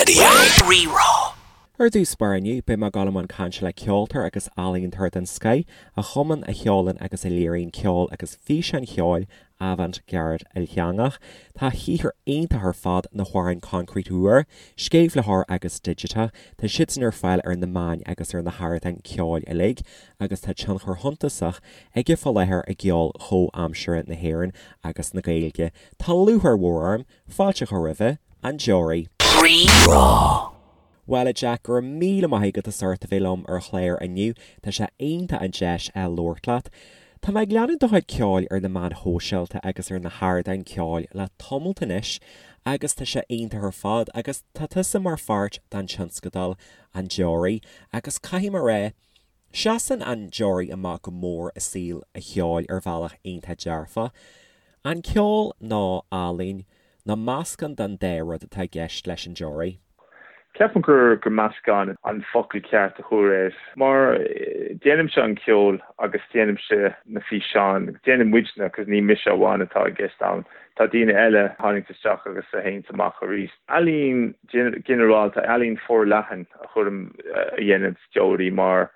Raidió Rí-Rá. Ar dtús báire inniu, beidh mé ag dul i mbun cainte le ceoltóir agus ealaíontóir den scoith, a chumann, a cheolann agus a léiríonn ceol agus físeáin cheoil avant-garde ilteangach. Tá a shaothar iontach ar fad, na hamhráin Concrete Úr, Sceimhlitheoir agus Digiteach, tá siadsan ar fáil ar na meáin agus ar na hardáin ceoil uilig agus tá tionchar shuntasach aige fá láthair i gceol chomhaimseartha na hÉireann agus na Gaeilge. Tá lúcháir mhór orm fáilte a chur roimhe, An Deoraí. Rí-Rá. Bhuel a Jack, go raibh míle maith agat as ucht a bheith liom ar an chlár inniu, tá sé iontach an deis a labhairt leat. Tá mé ag leanúint do chuid ceoil ar na meáin shóisialta agus ar na hardáin ceoil le tamalt anois agus tá sé iontach ar fad agus tá tusa mar pháirt den tionscadal An Deoraí agus caithfidh mé a rá, Seasann an Deoraí amach go mór i saol an cheoil ar bhealach iontach dearfach. An ceol nó ealaín, nó meascán den dá rud atá i gceist leis an Deoraí? Ceapaim gur meascán an focal ceart a chur air. Mar déanaimse an ceol agus déanaimse na físeáin, déanann muidne, cos ní mise amháin atá i gceist ann, tá daoine eile a tháinig isteach agus a théanns amach arís. Ealaín ginearálta, ealaín forleathan a chuirim, a dhéanann Deoraí mar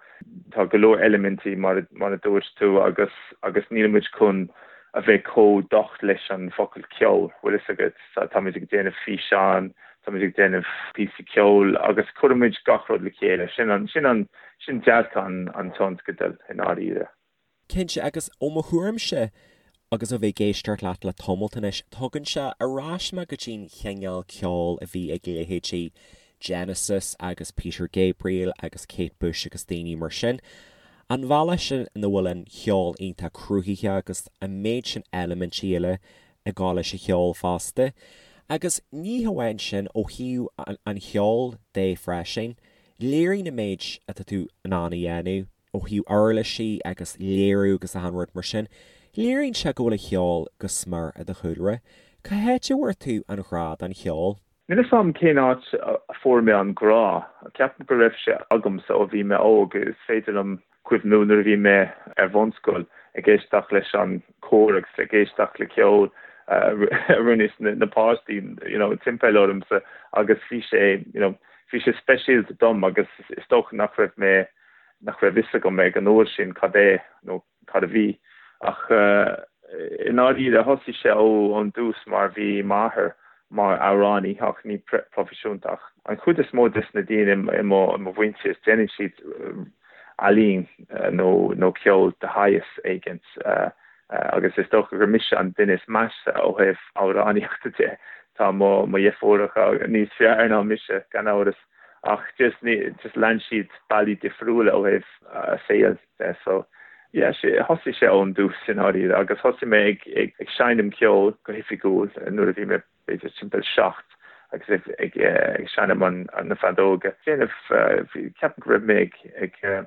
tá go leor eilimintí mar a dúirt tú agus agus níl muid chun a bheith chomh docht leis an focal ceol, bhfuil fhios agat, táimid ag déanamh físeán, táimid ag déanamh píosaí ceoil agus cuirimid gach rud le chéile, sin an, sin an, sin dearcadh an an tionscadail i ndáiríre. Cinnte, agus ó mo thuairimse, agus ó bheith ag éisteacht leat le tamalt anois, tugann sé ar ais mé go dtí'n chineál ceoil a bhí ag leithéidí Genesis agus Peter Gabriel agus Kate Bush agus daoine mar sin. An bhealach sin ina bhfuil an cheol iontach cruthaitheach agus an méid sin eilimintí eile ag gabháil leis an cheol fosta. Agus ní hamháin sin, ó thaobh an cheoil de freisin, léiríonn an méid atá tú in ann a dhéanamh, ó thaobh uirlisí agus léiriú agus achan rud mar sin, léiríonn sé go bhfuil an cheol go smior i do chúlra. Cá háit a bhfuair tú an ghrá don cheol? Níl 'fhios a'm cén áit a fuair mé an grá. Ceapaim go raibh sé agamsa ó bhí mé óg. Is féidir liom cuimhniú nuair a bhí mé ar bhunscoil ag éisteacht leis an cór agus ag éisteacht le ceol a rinne na páistí you know timpeall ormsa agus bhí sé you know bhí sé speisialta dom agus is dócha nach raibh mé nach raibh fhios agam ag an uair sin cad é nó cad a bhí ach i ndáiríre thosaigh sé ón dtús mar bhí m'athair mar amhránaí ach ní proifisiúnta ach an chuid is mó des na daoine i mo mhuintir déanann siad ealaín nó nó ceol de shaghas éigint agus is dócha gur mise an duine is measa ó thaobh amhránaíochta de. Tá mo mo dheirfiúracha níos fearr ná mise gan amhras. Ach just ní, just lean siad bealaí difriúla ó thaobh a saoil de so yeah sé, thosaigh sé ón dtús i ndáiríre agus thosaigh mé ag, ag, ag seinm ceoil go hoifigiúil nuair a bhí mé b'fhéidir timpeall 7 agus ag, ag, ag seinm an, na feadóga. Déanamh, bhí, ceapaim go raibh mé ag, ag,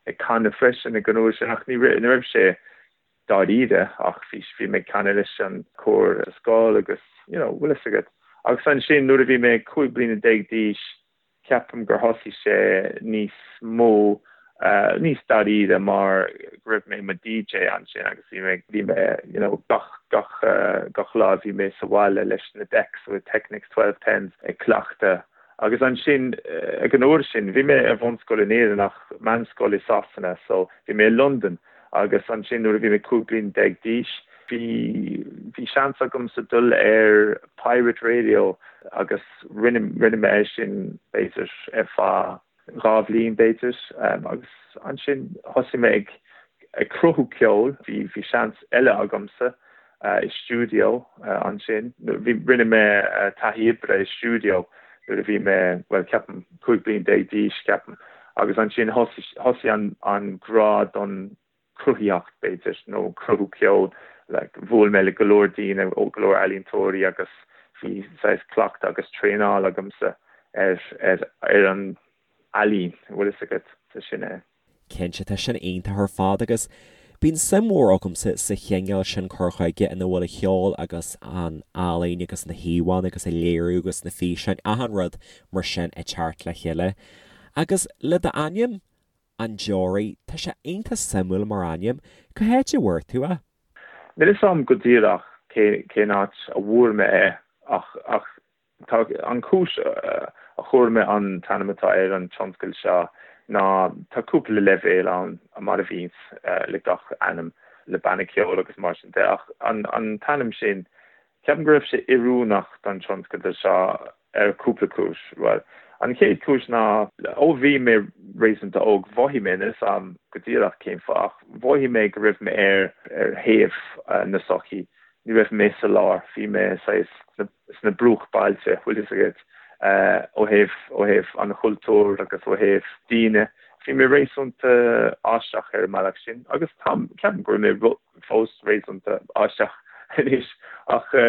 ag canadh freisin ag an uair sin ach ní raibh, ní raibh sé dáiríre ach bhí bhí mé ag canadh leis an cór sa scoil agus you know bhfuil fhios agat. Agus ansin nuair a bhí mé 15 bliana d'aois ceapaim gur thosaigh sé níos mó níos dáiríre mar go raibh mé i mo DJ ansin agus bhí mé bhí mé you know gach gach gach lá bhí mé sa bhaile leis na decks with Technics 1210s ag cleachtadh Agus ansin, ag an uair sin, bhí mé ar bhunscoil in Éirinn ach meánscoil i Sasana, so bhí mé i Londain. Agus ansin nuair a bhí mé 15 bliain d'aois, bhí, bhí seans agamsa dul ar Pirate Radio agus rinne, rinne mé é sin b'fhéidir ar feadh dhá bhliain b'fhéidir. Agus ansin thosaigh mé ag, ag cruthú ceoil, bhí, bhí seans eile agamsa i stiúideo ansin. Bhí, rinne mé taithí oibre i stiúideo nuair a bhí mé, bhuel, ceapaim, 15 bliain d'aois, ceapaim. Agus ansin thosaigh, thosaigh an, an grá don cruthaitheacht, b'fhéidir, nó cruthú ceoil. Like, bhuail mé le go leor daoine, ó go leor ealaíontóirí agus bhí saghas cleachtadh agus traenáil agamsa ar, ar, ar an ealaín, bhfuil fhios agat, so sin é. Cinnte, tá sin iontach ar fad agus bíonn suim mhór agamsa sa chineál sin cur chuige ina bhfuil an cheol agus an ealaín agus na híomhánna agus an léiriú agus na físeáin, achan rud mar sin ag teacht le chéile. Agus le d'ainm, An Deoraí, tá sé iontach suimiúil mar ainm. Cá háit a bhfuair tú é? Níl fhios a'm go díreach cén áit a bhfuair mé é ach, ach Tá an chúis. a chuir mé an t-ainm atá ar an tionscal seo ná tá cúpla leibhéal ann mar a bhíonns le gach ainm le banna ceoil agus mar sin de ach an an t-ainm sin ceapaim go raibh sé oiriúnach don tionscadal seo ar cúpla cúis. Bhuel, an chéad chúis ná ó bhí mé réasúnta óg mhothaigh mé, níl 'fhios a'm go díreach cén fáth ach mhothaigh mé go raibh mé ar ar thaobh na sochaí, ní raibh mé sa lár, bhí mé saghas sna bruachbailte, bhfuil fhios agat, ó thaobh ó thaobh an chultúir agus ó thaobh daoine. Bhí mé réasúnta aisteach ar an mbealach sin agus táim, ceapaim go bhfuil mé fós réasúnta aisteach anois ach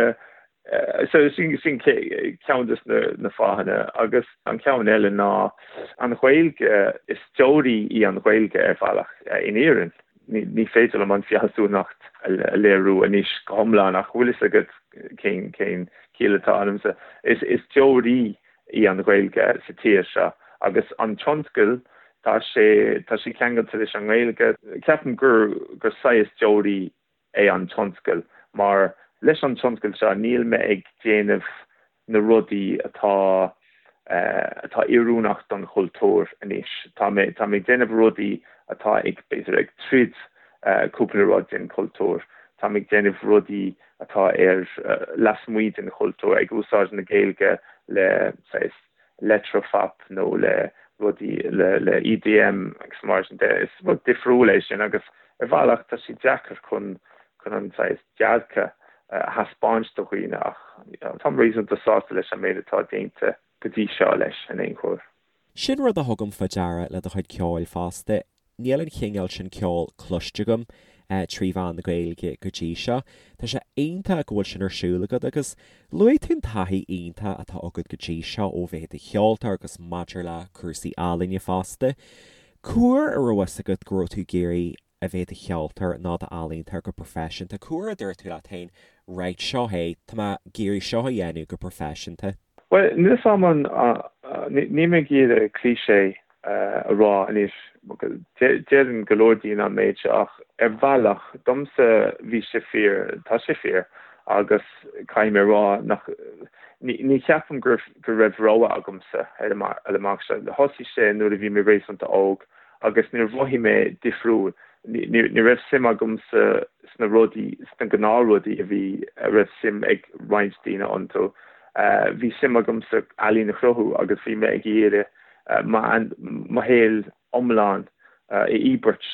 So sin sin ceann de na fáthanna agus an ceann eile ná an Ghaeilge, is deoraí í an Ghaeilge ar bhealach in Éirinn. Ní féidir liom an fealsúnacht a léiriú anois go hiomlán ach bhfuil fhios agat cén cén ciall atá ionamsa. Is is deoraí í an Ghaeilge sa tír seo agus an tionscal tá sé tá sé ceangailte leis an nGaeilge. Ceapaim gur gur saghas deoraí é an tionscal mar leis an tionscal seo níl mé ag déanamh na rudaí atá atá oiriúnach don chultúr anois. Tá mé tá mé ag déanamh rudaí atá ag b'fhéidir ag troid cúpla rud den chultúr. Tá mé ag déanamh rudaí atá ar lasmuigh den chultúr, ag úsáid na Gaeilge le saghas leictreaphop nó le rudaí le EDM agus mar sin de. Is rud difriúil é sin agus ar bhealach tá sé deacair chun chun an saghas dearcadh a thaispeáint do dhaoine ach táim réasúnta sásta leis an méid atá déanta go dtí seo leis in aon chor. Sin rud a thugaim fá deara le do chuid ceoil fosta. Níl an chineál sin ceoil cloiste agam trí mheán na Gaeilge go dtí seo. Tá sé iontach go bhfuil sin ar siúl agat agus luaigh tú an taithí iontach atá agat go dtí seo ó bheith i do cheoltóir agus maidir le cúrsaí ealaíne fosta. Cá huair a raibh fhios agat go raibh tú ag iarraidh a bheith i do cheoltóir nó d'ealaíontóir go proifisiúnta? Cá huair a dúirt tú leat féin right, seo é, tá mé ag iarraidh seo a dhéanamh go proifisiúnta? Bhuel, níl 'fhios a'm an, níl mé ag iarraidh cliché a rá anois, deireann go leor daoine an méid seo ach ar bhealach, domsa bhí sé fíor, tá sé fíor agus caithfidh mé a rá nach, ní cheapaim go raibh rogha agamsa ar an mbealach seo. Thosaigh sé nuair a bhí mé réasúnta óg agus níor mhothaigh mé difriúil, ní raibh suim agamsa sna rudaí, sna gnáthrudaí a bhí, a raibh suim ag roinnt daoine iontu. Bhí suim agamsa ealaín a chruthú agus bhí mé ag iarraidh mo shaol iomlán a íobairt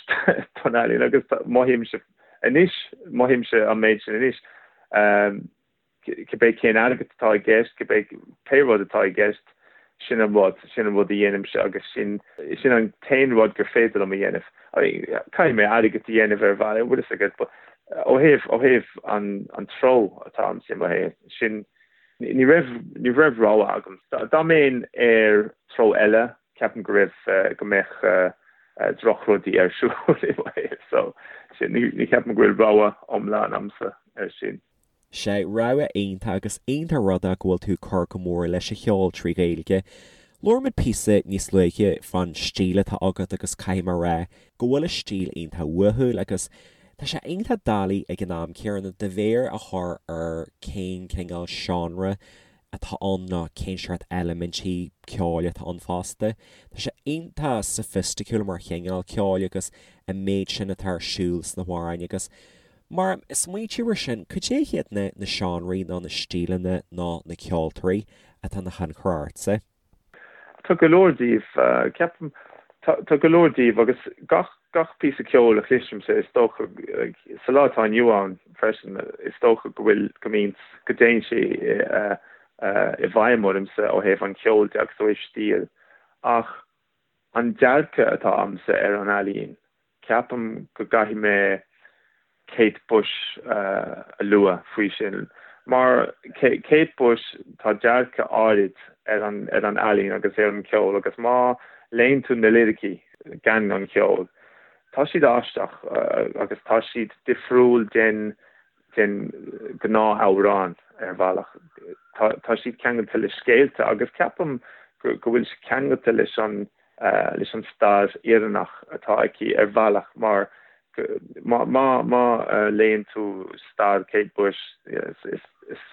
don ealaín agus mothaímse anois, mothaímse an méid sin anois. Cibé cén airgead atá i gceist, cibé pé rud atá i gceist, sin an rud, sin an rud a dhéanaimse agus sin, sin an t-aon rud gur féidir liom a dhéanamh. I mean, caithfidh mé airgead a dhéanamh ar bhealach, bhfuil fhios agat, but ó thaobh, ó thaobh an, an treo atá a'msa i mo shaol, sin, ní raibh, ní raibh rogha agam. Dá mbeinn ar treo eile, ceapaim go raibh, go mbeadh drochrudaí ar siúl i mo shaol, so sin, ní, ní cheapaim go bhfuil rogha iomlán a'msa ar sin. Sea, rogha iontach agus iontach rud é go bhfuil tú ag cur go mór leis an cheol trí Ghaeilge. Labhair muid píosa níos luaithe fán stíl atá agat agus caithfidh mé a rá go bhfuil an stíl iontach uathúil agus tá sé iontach doiligh ag an am céanna do mhéar a chur ar cén cineál seánra atá ann nó cén seort eilimintí ceoil atá ann fosta. Tá sé iontach soifisticiúil mar chineál ceoil agus an méid sin atá ar siúl sna hamhráin agus Mar a smaointíonn tú ar sin, cad é hiad na na seánraí nó na stíleanna nó na ceoltóirí atá ina thionchar ortsa? Tá go leor díobh, ceapaim. Tá go leor díobh agus gach gach píosa ceoil a chloisimse, is dócha, sa lá atá inniu ann freisin, is dócha go bhfuil, go mbíonn, go dtéann sé i bhfeidhm ormsa ó thaobh an cheoil de agus ó thaobh stíl. Ach an dearcadh atá a'msa ar an ealaín, Ceapaim go gcaithfidh mé Kate Bush a lua faoi sin. Mar Kate Bush, tá dearcadh áirid ar an ar an ealaín agus ar an cheol agus má léann tú na liricí gan an cheol, tá siad aisteach agus tá siad difriúil den den ghnáth-amhrán ar bhealach. Tá tá siad ceangailte le scéalta agus ceapaim go go bhfuil sé ceangailte leis an leis an stair Éireannach atá aici ar bhealach mar má má léann tú stair Kate Bush is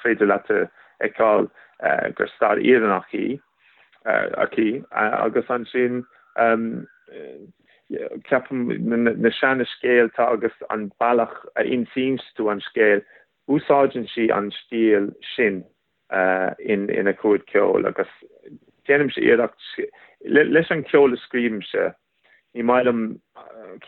féidir leat a fheiceáil gur stair Éireannach í. aici agus ansin ceapaim na seana scéalta agus an bealach a insíonn tú an scéal, úsáideann sí an stíl sin ina cuid ceoil agus déanaimse iarracht leis an ceol a scríobhaimse, ní maith liom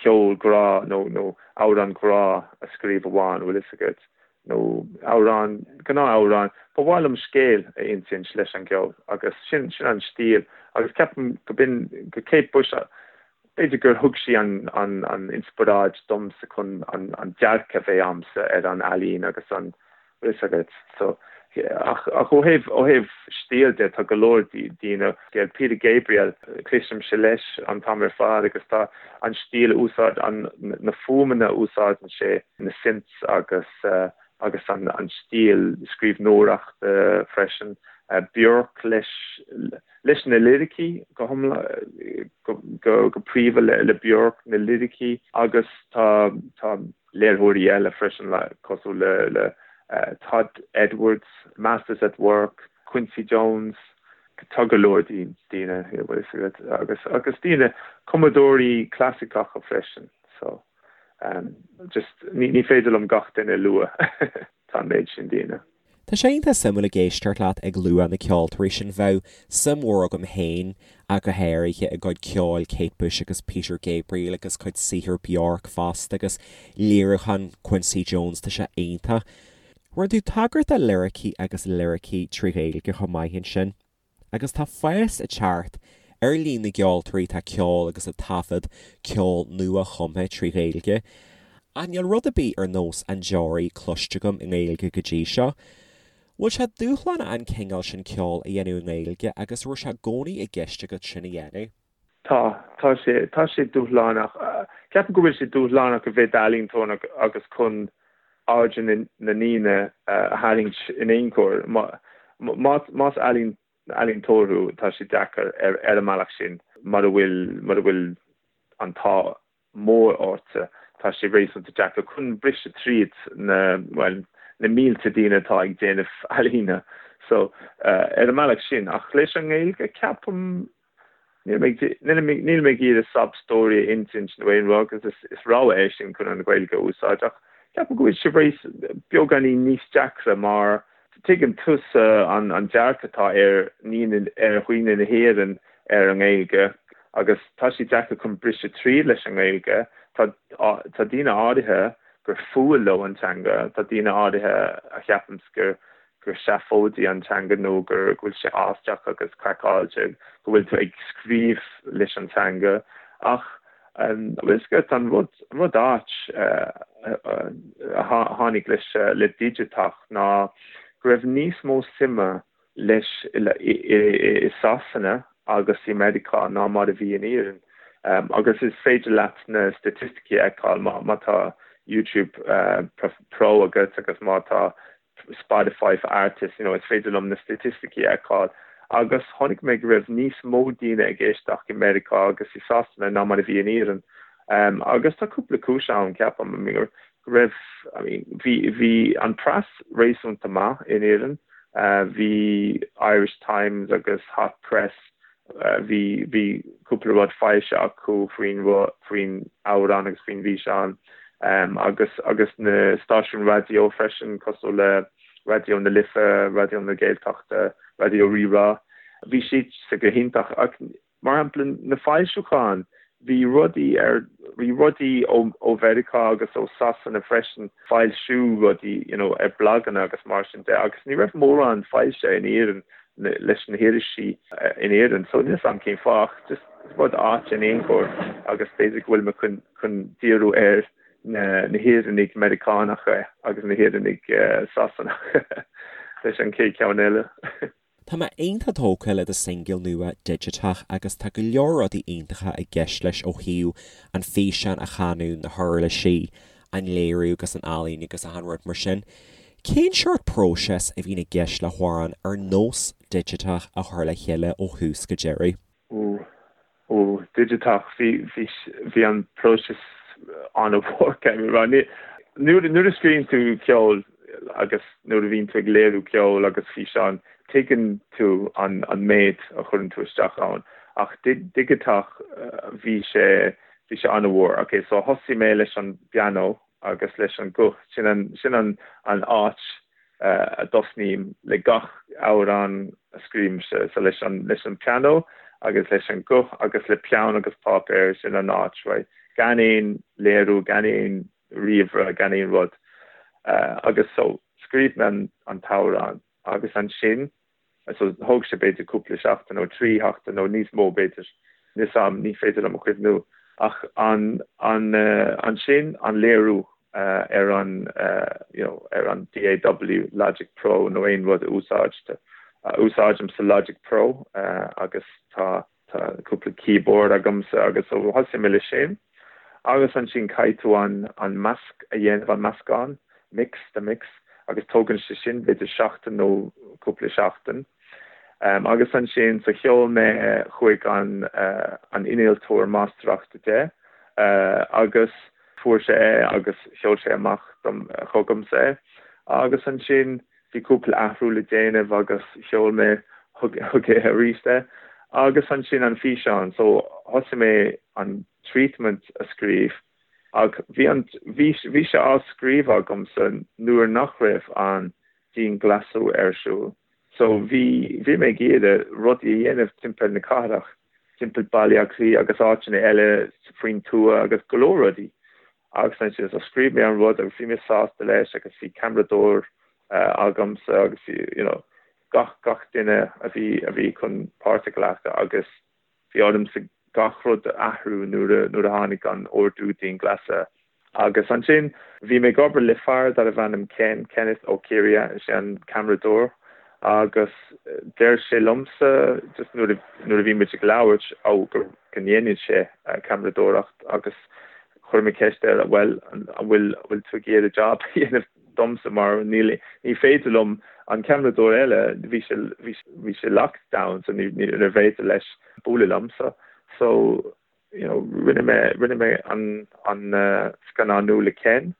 ceol grá nó nó amhrán grá a scríobh amháin, bhfuil fhios agat, nó amhrán, gnáth-amhrán. Ba mhaith liom scéal a insint leis an gceol agus sin sin an stíl agus ceapaim go b'in go Kate Bush b'fhéidir gur thug sí an an an inspioráid domsa chun an an dearcadh a bheith a'msa ar an ealaín agus an bhfuil fhios agat. So, ach ach ó thaobh ó thaobh stíl de tá go leor daoine, Peter Gabriel, cloisimse leis an t-am ar fad agus tá an stíl a úsáid an na fuaimeanna a úsáideann sé, na synths agus agus an an stíl scríbhneoireachta freisin. Bjork leis leis na liricí go hiomlán go go go príomha le le Bjork na liricí agus tá tá léiritheoirí eile freisin cosúil le le Todd Edwards, Masters at Work, Quincy Jones, tá go leor daoine agus agus daoine cumadóirí clasaiceacha freisin so just ní féidir liom gach duine a lua tá an méid sin daoine. Tá sé iontach suimiúil ag éisteacht leat ag lua na ceoltóirí sin. Bheadh suim mhór agam féin ach go háirithe i gcuid ceoil Kate Bush agus Peter Gabriel agus cuid saothar Bjork fosta agus léiriúchán Quincy Jones, tá sé iontach. Rinne tú tagairt do liricí agus liricí trí Ghaeilge chomh maith ansin. Agus tá fás ag teacht ar líon na gceoltóirí atá ag ceol agus ag taifead ceol nua-chumtha trí Ghaeilge. Ach níl rud ar bith ar nós An Deoraí cloiste agam i nGaeilge go dtí seo. Bhfuil sé dúshlánach an cineál sin ceoil a dhéanamh i nGaeilge agus raibh sé i gcónaí i gceist agat sin a dhéanamh? Tá, tá sé, tá sé dúshlánach. Ceapaim go bhfuil sé dúshlánach a bheith i d'ealaíontóir agus chun aird na ndaoine a tharraingt in aon chor. Más ealaíontóir thú, tá sé deacair ar an mbealach sin mura bhfuil, mura bhfuil an t-ádh mór ortsa, tá sé réasúnta deacair chun briseadh tríd na, bhuel, na mílte daoine atá ag déanamh ealaíne. So, ar an mbealach sin. Ach leis an nGaeilge, ceapaim, níl mé, níl mé ag iarraidh sob story a insint nó aon rud agus is, is rogha é sin chun an Ghaeilge a úsáid ach ceapaim go bhfuil sé réas, beagáinín níos deacra mar tuigeann tusa an, an dearcadh atá ar ndaoine, ar dhaoine na hÉireann ar an nGaeilge agus tá sé deacair chun briseadh tríd leis an nGaeilge. Tá, tá daoine áirithe gur fuath leo an teanga, tá daoine áirithe a cheapanns gur, gur seafóidí an teanga nó gur, go bhfuil sé aisteach agus craiceáilte go bhfuil tú ag scríobh leis an teanga ach bhfuil fhios agat an rud, an rud ait a tháinig leis, le digiteach ná go raibh níos mó suime leis i Sasana agus i Meiriceá ná mar a bhí in Éirinn. Agus is féidir leat na staitisticí a fheiceáil má tá YouTube Pro agat agus má tá Spotify for Artists, you know, is féidir liom na staitisticí a fheiceáil. Agus chonaic mé go raibh níos mó daoine ag éisteacht i Meiriceá agus i Sasana ná mar a bhí in Éirinn. Agus tá cúpla cúis ann, ceapaim. I mean, go raibh, I mean, bhí, bhí an preas réasúnta maith in Éirinn. Bhí Irish Times agus Hot Press, bhí, bhí cúpla rud foilsithe acu faoin, faoin amhrán agus faoin bhfíseán agus, agus na stáisiúin raidió freisin cosúil le Raidió na Life, Raidió na Gaeltachta, Raidió Rí-Rá. Bhí siad go hiontach ach Mar shampla, na foilseacháin, bhí rudaí ar, bhí rudaí ó, ó Mheiriceá agus ó Sasana freisin, foilsiú rudaí, you know, ar blaganna agus mar sin de agus ní raibh mórán foilsithe in Éirinn leis na hirisí in Éirinn. So níl 'fhios a'm cén fáth ach just rud ait in aon chor agus b'fhéidir go bhfuil mé chun, chun díriú ar na, na hÉireannaigh Meiriceánacha agus na hÉireannaigh Sasanacha leis an chéad cheann eile. Tá mé iontach tógtha le do singil nua Digiteach agus tá go leor rudaí iontacha i gceist leis ó thaobh an físeán a chanadh, na huirlisí, an léiriú agus an ealaín agus achan rud mar sin. Cén seort próiseas a bhíonn i gceist le hamhrán ar nós Digiteach a chur le chéile ó thús go deireadh? Ó, ó, digiteach, bhí, bhí, bhí an próiseas an-mhór, caithfidh mé a rá. Ní, nuair, nuair a scríobhann tú ceol agus nuair a bhíonn tú ag léiriú ceol agus físeán, Tuigeann tú an méid a chuireann tú isteach ann ach digiteach bhí sé bhí sé an-mhór. Ok so thosaigh mé leis an bpianó agus leis an guth, sin an sin an an áit a dtosnaím le gach amhrán a scríobhaimse, so leis an leis an pianó agus leis an guth agus le peann agus páipéar, sin an áit, right? Gan aon léiriú, gan aon ríomhaire, gan aon rud. Agus so scríobh mé an an t-amhrán. Agus ansin, so thóg sé b'fhéidir cúpla seachtain nó trí sheachtain nó níos mó b'fhéidir, níl 'fhios a'm, ní féidir liom a chuimhniú, ach an, an, ansin an léiriú ar an, you know, ar an DAW, Logic Pro nó aon rud a úsáidte, úsáidimse Logic Pro agus tá, Tá cúpla keyboard agamsa agus so thosaigh mé leis sin agus ansin caithfidh tú an an measc a dhéanamh, an meascán, mix, the mix, agus tógann sé sin b'fhéidir seachtain nó cúpla seachtain. Agus ansin so sheol mé chuig an an innealtóir máistreachta de agus fuair sé é agus sheol sé amach dom chugamsa é agus ansin Bhí cúpla athrú le déanamh agus sheol mé chuige arís é. Agus ansin an físeán, so thosaigh mé an treatment a scríobh ach bhí an, bhí, bhí sé á scríobh agamsa nuair nach raibh an dianghlasáil ar siúl. So bhí, bhí mé ag iarraidh rudaí a dhéanamh timpeall na cathrach, timpeall Baile Átha Cliath agus áiteanna eile faoin tuath agus go leor rudaí. Agus ansin so scríobh mé an rud agus bhí mé sásta leis agus bhí ceamaradóir agamsa agus bhí you know gach gach duine a bhí a bhí chun páirt a ghlacadh agus bhí ormsa gach rud a athrú nuair a nuair a tháinig an ordú dianghlasála. Agus ansin bhí mé ag obair le fear darbh ainm Ken, Kenneth Ó Ciardha, is é an ceamaradóir agus deir sé liomsa just nuair a nuair a bhí muid ag labhairt ó go go ndéanann sé ceamaradóireacht agus Chuir mé ceist air, bhuel, an bhfuil, an bhfuil tú ag iarraidh job a dhéanamh domsa mar níl, ní féidir liom, an ceamaradóir eile, bhí sé, bhí, bhí sé lockdown so ní, níorbh fhéidir leis bualadh liomsa. So, you know, rinne mé, rinne mé an, an scannánú le Ken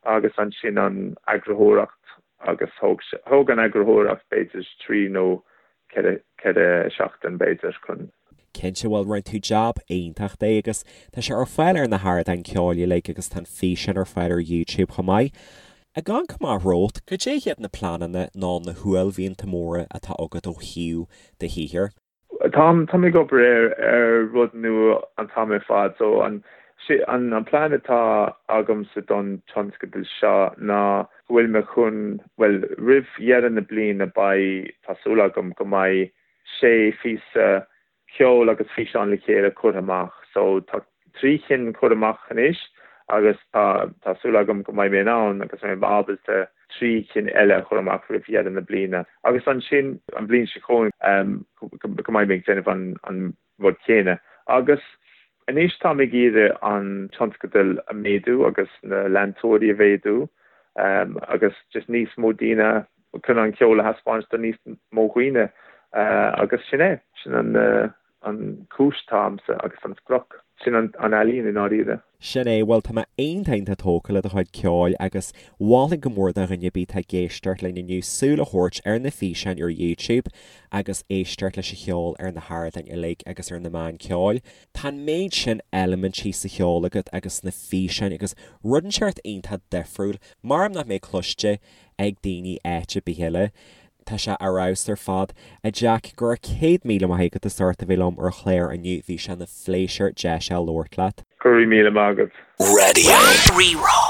agus ansin an eagarthóireacht agus thóg sé, thóg an eagarthóireacht b'fhéidir trí nó 4 seachtain b'fhéidir chun. Cinnte, bhuel rinne tú jab iontach de agus tá sé ar fáil ar na hardáin ceoil uilig agus tá an físeán ar fáil ar YouTube chomh maith. Ag amharc amach romhat, cad é hiad na pleananna nó na huaillmhianta móra atá agat ó thaobh do shaothair? Táim táim ag obair ar ar rud nua an t-am ar fad so an an an plean atá agamsa don tionscadal seo ná go bhfuil mé chun, bhuel, roimh dheireadh na bliana beidh, tá súil agam go mbeidh sé phíosa ceoil agus físeán le chéile curtha amach. So tá trí chinn curtha amach anois agus tá, tá súil agam go mbeidh mé in ann agus mbeidh mé ábalta trí chinn eile a chur amach roimh dheireadh na bliana. Agus ansin an bhliain seo chugainn go mbeidh mé ag déanamh an, an rud céanna. Agus anois táim ag iarraidh an tionscadal a mhéadú agus na leantóirí a mhéadú agus just níos mó daoine chun an ceol a thaispeáint do níos mó dhaoine agus sin é, sin an an chúis atá a'msa agus an sprioc. Sin an ealaín i ndáiríre. Sin é, bhuel tá mé iontach iontach tógtha le do chuid ceoil agus mholfainn go mór do dhuine ar bith atá ag éisteacht linn inniu súil a thabhairt ar na físeáin ar YouTube agus éisteacht leis an cheol ar na hardáin uilig agus ar na meáin ceoil. Tá an méid sin eilimintí sa cheol agat agus sna físeáin agus rud inteacht iontach difriúil mar nach mbeidh cloiste ag daoine áit ar bith eile. Tá sé ar fheabhas ar fad. A Jack, go raibh 100,000 maith agat as ucht a bheith liom ar an chlár inniu, bhí sé ina phléisiúr deis a labhairt leat. Go raibh míle maith agat. Radio Rí-Rá.